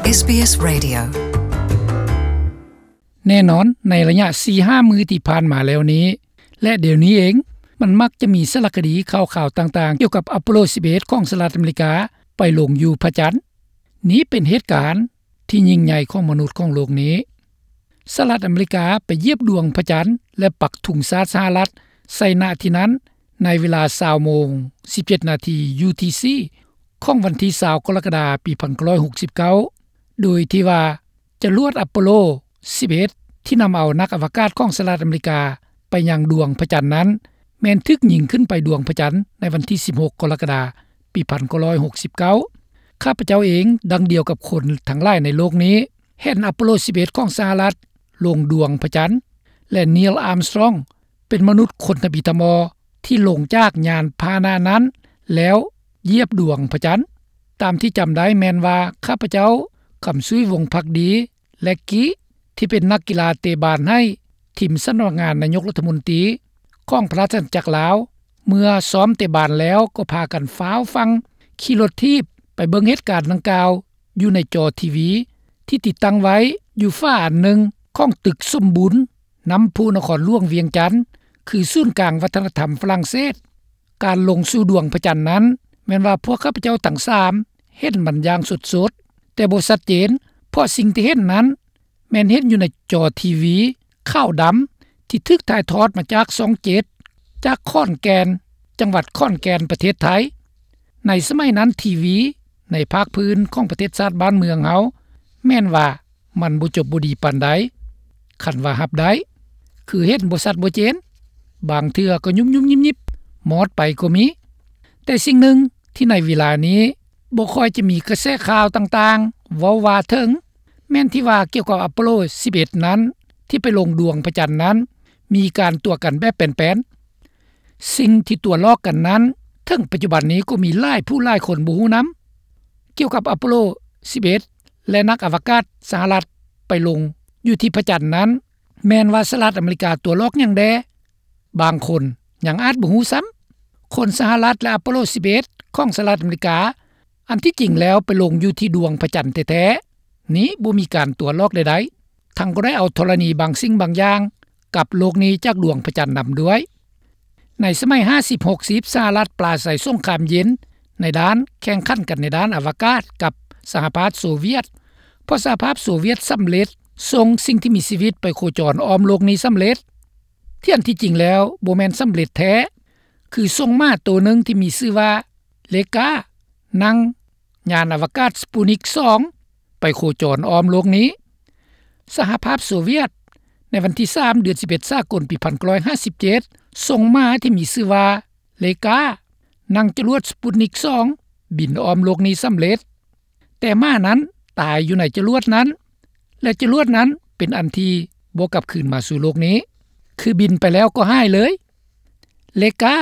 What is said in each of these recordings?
ເອສບີເອສ Radio. ແນ່ນອນ, ໃນໄລຍະສີ່ຫ້າມື້ທີ່ຜ່ານມາແລ້ວນີ້ ແລະ ດຽວນີ້ເອງ, ມັນມັກຈະມີສາລະຄະດີຂ່າວໆຕ່າງໆ ກ່ຽວກັບອາໂປໂລສິບເອັດ ຂອງສະຫະລັດອາເມລິກາ ໄປລົງຢູ່ພະຈັນ. ນີ້ເປັນເຫດການທີ່ຍິ່ງໃຫຍ່ຂອງມະນຸດຂອງໂລກນີ້. ສະຫະລັດອາເມລິກາໄປຢຽບດວງພະຈັນ ແລະ ປັກທຸງຊາດສະຫະລັດໃສ່ ນະ ທີ່ນັ້ນ ໃນເວລາຊາວໂມງ ສິບເຈັດນາທີ UTC ຂອງວັນທີຊາວ ກໍລະກະດາ ປີພັນເກົ້າຮ້ອຍຫົກສິບເກົ້າ ໂດຍທີ່ວ່າຈະລວດອາໂປໂລສິບເອັດ ທີ່ນຳເອົານັກອະວະກາດຂອງສະຫະລັດອາເມລິກາໄປຍັງດວງພະຈັນນັ້ນ ແມ່ນຖືກຍິງຂຶ້ນໄປດວງພະຈັນໃນວັນທີສິບຫົກ ກໍລະກະດາ ປີພັນເກົ້າຮ້ອຍຫົກສິບເກົ້າ. ຂ້າພະເຈົ້າເອງ ດັ່ງດຽວກັບຄົນທັງຫຼາຍໃນໂລກນີ້ ເຫັນອາໂປໂລສິບເອັດ ຂອງສະຫະລັດລົງດວງພະຈັນ ແລະ ນີລ ອາມສະຕຣອງ ເປັນມະນຸດຄົນທຳອິດທຳອໍທີ່ລົງຈາກຍານພາຫະນະນັ້ນ ແລ້ວຢຽບດວງພະຈັນ. ຕາມທີ່ຈຳໄດ້ແມ່ນວ່າ ຂ້າພະເຈົ້າ ຄຳສຸຍ ວົງພັກດີ ແລະ ກີ້ ທີ່ເປັນນັກກິລາເຕະບານໃຫ້ທີມສຳນັກງານນາຍົກລັດຖະມົນຕີຂອງພະລາຊະອານາຈັກລາວ ເມື່ອຊ້ອມເຕະບານແລ້ວກໍພາກັນຟ້າວຟັ່ງຂີ່ລົດຖີບໄປເບິ່ງເຫດການດັ່ງກ່າວ ຢູ່ໃນຈໍທີວີທີ່ຕິດຕັ້ງໄວ້ຢູ່ຝາອັນໜຶ່ງຂອງຕຶກສົມບູນ ນ້ຳພຸນະຄອນຫຼວງວຽງຈັນ ຄືສູນກາງວັດທະນະທຳຝຣັ່ງເສດ. ການລົງສູ່ດວງພະຈັນນັ້ນ ແມ່ນວ່າພວກຂ້າພະເຈົ້າທັງສາມເຫັນມັນຢ່າງສົດໆ, ແຕ່ບໍ່ຊັດເຈນ, ເພາະສິ່ງທີ່ເຫັນນັ້ນ ແມ່ນເຫັນຢູ່ໃນຈໍທີວີຂາວດຳ ທີ່ຖືກຖ່າຍທອດມາຈາກຊ່ອງເຈັດ ຈາກຂອນແກ່ນ, ຈັງຫວັດຂອນແກ່ນ ປະເທດໄທ. ໃນສະໄໝນັ້ນ ທີວີໃນພາກພື້ນຂອງປະເທດຊາດບ້ານເມືອງເຮົາ ແມ່ນວ່າມັນບໍ່ຈົບບໍ່ດີປານໃດ. ຄັນວ່າຮັບໄດ້ ຄືເຫັນບໍ່ຊັດບໍ່ເຈນ, ບາງເທື່ອກໍຍຸບໆຍິບໆ ມອດໄປກໍມີ. ແຕ່ສິ່ງໜຶ່ງທີ່ໃນເວລານີ້ບໍ່ຄ່ອຍຈະມີກະແສຂ່າວຕ່າງໆເວົ້າວ່າເຖິງ ແມ່ນທີ່ວ່າກ່ຽວກັບອາໂປໂລສິບເອັດນັ້ນ ທີ່ໄປລົງດວງພະຈັນນັ້ນ ມີການຕົວະກັນແບບແປນໆ. ສິ່ງທີ່ຕົວະຫຼອກກັນນັ້ນ ເຖິງປັດຈຸບັນນີ້ກໍມີຫຼາຍຜູ້ຫຼາຍຄົນບໍ່ຮູ້ນຳ. ກ່ຽວກັບອາໂປໂລສິບເອັດ ແລະ ນັກອະວະກາດສະຫະລັດໄປລົງຢູ່ທີ່ພະຈັນນັ້ນ ແມ່ນວ່າສະຫະລັດອາເມລິກາຕົວະຫຼອກຫຍັງແດ່? ບາງຄົນຍັງອາດບໍ່ຮູ້ຊ້ຳ. ຄົນສະຫະລັດ ແລະ ອາໂປໂລສິບເອັດ ຂອງສະຫະລັດອາເມລິກາ ອັນທີ່ຈິງແລ້ວໄປລົງຢູ່ທີ່ດວງພະຈັນແທ້ໆ ນີ້ບໍ່ມີການຕົວະຫຼອກໃດໆ, ທັງກໍໄດ້ເອົາທໍລະນີບາງສິ່ງບາງຢ່າງກັບໂລກນີ້ຈາກດວງພະຈັນນຳດ້ວຍ. ໃນສະໄໝຫ້າສິບ ຫົກສິບ ສະຫະລັດປາໄສສົງຄາມເຢັນ ໃນດ້ານແຂ່ງຂັນກັນໃນດ້ານອະວະກາດກັບສະຫະພາບໂຊວຽດ, ເພາະສະຫະພາບໂຊວຽດສຳເລັດສົ່ງສິ່ງທີ່ມີຊີວິດໄປໂຄຈອນອ້ອມໂລກນີ້ສຳເລັດ. ທີ່ອັນທີ່ຈິງແລ້ວບໍ່ແມ່ນສຳເລັດແທ້, ຄືສົ່ງໝາໂຕໜຶ່ງທີ່ມີຊື່ວ່າເລກາ ນັ່ງຍານອະວະກາດສະປູນິກສອງ ໄປໂຄຈອນອ້ອມໂລກນີ້. ສະຫະພາບໂຊວຽດ ໃນວັນທີສາມ ເດືອນສິບເອັດ ສາກົນ ປີພັນເກົ້າຮ້ອຍຫ້າສິບເຈັດ ສົ່ງໝາທີ່ມີຊື່ວ່າເລກາ ນັ່ງຈະຫຼວດສະປູນິກສອງ ບິນອ້ອມໂລກນີ້ສຳເລັດ. ແຕ່ໝານັ້ນຕາຍຢູ່ໃນຈະຫຼວດນັ້ນ ແລະ ຈະຫຼວດນັ້ນເປັນອັນທີ່ບໍ່ກັບຄືນມາສູ່ໂລກນີ້, ຄືບິນໄປແລ້ວກໍຫາຍເລີຍ. ເລກາ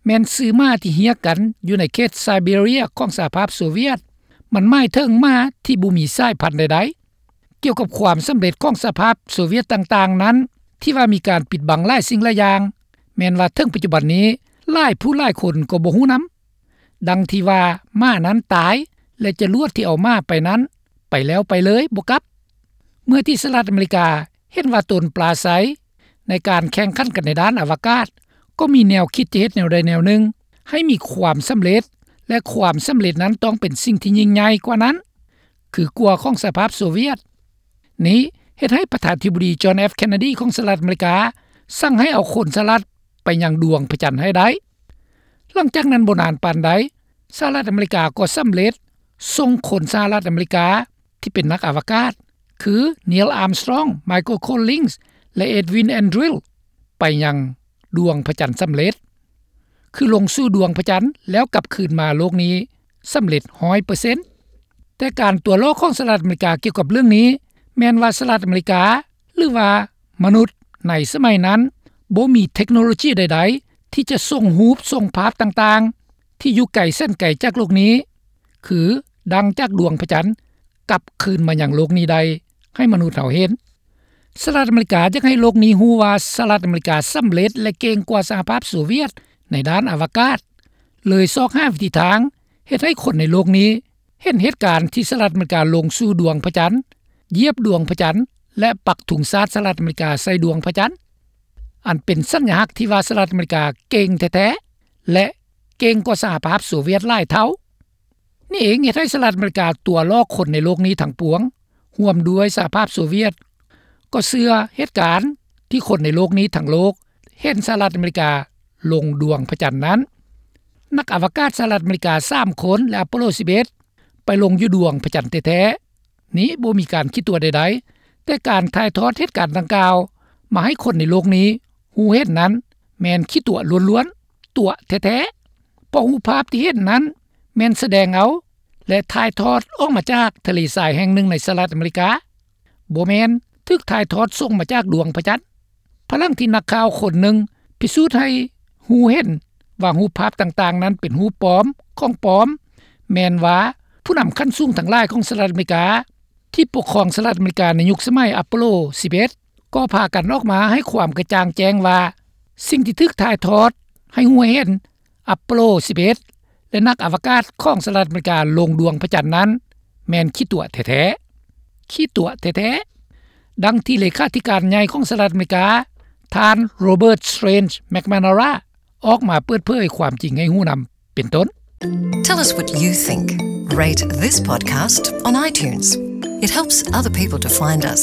ແມ່ນຊື່ໝາທີ່ຮຽກກັນຢູ່ໃນເຂດໄຊເບເຣຍຂອງສະຫະພາບໂຊວຽດ, ມັນໝາຍເຖິງໝາທີ່ບໍ່ມີສາຍພັນໃດໆ. ກ່ຽວກັບຄວາມສຳເລັດຂອງສະຫະພາບໂຊວຽດຕ່າງໆນັ້ນ ທີ່ວ່າມີການປິດບັງຫຼາຍສິ່ງຫຼາຍຢ່າງ, ແມ່ນວ່າເຖິງປັດຈຸບັນນີ້ ຫຼາຍຜູ້ຫຼາຍຄົນກໍບໍ່ຮູ້ນຳ. ດັ່ງທີ່ວ່າໝານັ້ນຕາຍ ແລະ ຈະຫຼວດທີ່ເອົາໝາໄປນັ້ນ ໄປແລ້ວໄປເລີຍ ບໍ່ກັບ. ເມື່ອທີ່ສະຫະລັດອາເມລິກາເຫັນວ່າຕົນປາໄສໃນການແຂ່ງຂັນກັນໃນດ້ານອະວະກາດ ກໍມີແນວຄິດຈະເຮັດແນວໃດແນວໜຶ່ງໃຫ້ມີຄວາມສຳເລັດ, ແລະ ຄວາມສຳເລັດນັ້ນຕ້ອງເປັນສິ່ງທີ່ຍິ່ງໃຫຍ່ກວ່ານັ້ນ ຄືກວ່າຂອງສະຫະພາບໂຊວຽດ. ນີ້ເຮັດໃຫ້ປະທານາທິບໍດີ ຈອນ ເອັຟ ເຄນເນດີ ຂອງສະຫະລັດອາເມລິກາ ສັ່ງໃຫ້ເອົາຄົນສະຫະລັດໄປຍັງດວງພະຈັນໃຫ້ໄດ້. ຫຼັງຈາກນັ້ນບໍ່ນານປານໃດ, ສະຫະລັດອາເມລິກາກໍສຳເລັດສົ່ງຄົນສະຫະລັດອາເມລິກາທີ່ເປັນນັກອະວະກາດ ຄື ນີລ ອາມສະຕຣອງ, ໄມເຄິນ ໂຄລລິງສ໌ ແລະ ເອັດວິນ ແອນດຣິວ ໄປຍັງດວງພະຈັນສຳເລັດ, ຄືລົງສູ່ດວງພະຈັນແລ້ວກັບຄືນມາໂລກນີ້ສຳເລັດຮ້ອຍເປີເຊັນ. ແຕ່ການຕົວະຫຼອກຂອງສະຫະລັດອາເມລິກາກ່ຽວກັບເລື່ອງນີ້ ແມ່ນວ່າສະຫະລັດອາເມລິກາ ຫຼືວ່າມະນຸດໃນສະໄໝນັ້ນ ບໍ່ມີເທັກໂນໂລຈີໃດໆທີ່ຈະສົ່ງຮູບສົ່ງພາບຕ່າງໆທີ່ຢູ່ໄກແສນໄກຈາກໂລກນີ້ ຄືດັງຈາກດວງພະຈັນ ກັບຄືນມາຍັງໂລກນີ້ໄດ້ໃຫ້ມະນຸດເຮົາເຫັນ. ສະຫະລັດອາເມລິກາຢາກໃຫ້ໂລກນີ້ຮູ້ວ່າສະຫະລັດອາເມລິກາສຳເລັດ ແລະ ເກັ່ງກວ່າສະຫະພາບໂຊວຽດໃນດ້ານອະວະກາດ, ເລີຍຊອກຫາວິທີທາງເຮັດໃຫ້ຄົນໃນໂລກນີ້ ເຫັນເຫດການທີ່ສະຫະລັດອາເມລິກາລົງສູ່ດວງພະຈັນ, ຢຽບດວງພະຈັນ ແລະ ປັກທຸງຊາດສະຫະລັດອາເມລິກາໃສ່ດວງພະຈັນ, ອັນເປັນສັນຍາຮັກທີ່ວ່າສະຫະລັດອາເມລິກາເກັ່ງແທ້ໆ ແລະ ເກັ່ງກວ່າສະຫະພາບໂຊວຽດຫຼາຍເທົ່າ. ນີ້ເອງເຮັດໃຫ້ສະຫະລັດອາເມລິກາຕົວະຫຼອກຄົນໃນໂລກນີ້ທັງປວງ, ຮ່ວມດ້ວຍສະຫະພາບໂຊວຽດ, ກໍເຊື່ອເຫດການທີ່ຄົນໃນໂລກນີ້ທັງໂລກເຫັນສະຫະລັດອາເມລິກາລົງດວງພະຈັນນັ້ນ. ນັກອະວະກາດສະຫະລັດອາເມລິກາສາມຄົນ ແລະ ອາໂປໂລສິບເອັດ ໄປລົງຢູ່ດວງພະຈັນແທ້ໆ. ນີ້ບໍ່ມີການຂີ້ຕົວະໃດໆ, ແຕ່ການຖ່າຍທອດເຫດການດັ່ງກ່າວມາໃຫ້ຄົນໃນໂລກນີ້ຮູ້ເຫັນນັ້ນ ແມ່ນຂີ້ຕົວະລ້ວນໆ, ຕົວະແທ້ໆ, ເພາະຮູບພາບທີ່ເຫັນນັ້ນແມ່ນສະແດງເອົາ ແລະ ຖ່າຍທອດອອກມາຈາກທະເລຊາຍແຫ່ງໜຶ່ງໃນສະຫະລັດອາເມລິກາ, ບໍ່ແມ່ນຖືກຖ່າຍທອດສົ່ງມາຈາກດວງພະຈັນ. ພາຍຫຼັງທີ່ນັກຂ່າວຄົນໜຶ່ງພິສູດໃຫ້ຮູ້ເຫັນວ່າຮູບພາບຕ່າງໆນັ້ນເປັນຮູບປອມ, ຂອງປອມ, ແມ່ນວ່າຜູ້ນຳຂັ້ນສູງທັງຫຼາຍຂອງສະຫະລັດອາເມລິກາ ທີ່ປົກຄອງສະຫະລັດອາເມລິກາໃນຍຸກສະໄໝອາໂປໂລສິບເອັດ ກໍພາກັນອອກມາໃຫ້ຄວາມກະຈ່າງແຈ້ງວ່າ ສິ່ງທີ່ຖືກຖ່າຍທອດໃຫ້ຮູ້ໃຫ້ເຫັນອາໂປໂລສິບເອັດ ແລະ ນັກອະວະກາດຂອງສະຫະລັດອາເມລິກາລົງດວງພະຈັນນັ້ນ ແມ່ນຂີ້ຕົວະແທ້ໆ. ຂີ້ຕົວະແທ້ໆ. ດັ່ງທີ່ເລຂາທິການໃຫຍ່ຂອງສະຫະລັດອາເມລິກາ ທ່ານ Robert Strange McNamara ອອກມາເປີດເຜີຍຄວາມຈິງໃຫ້ຮູ້ນຳເປັນຕົ້ນ. Tell us what you think. Rate this podcast on iTunes. It helps other people to find us.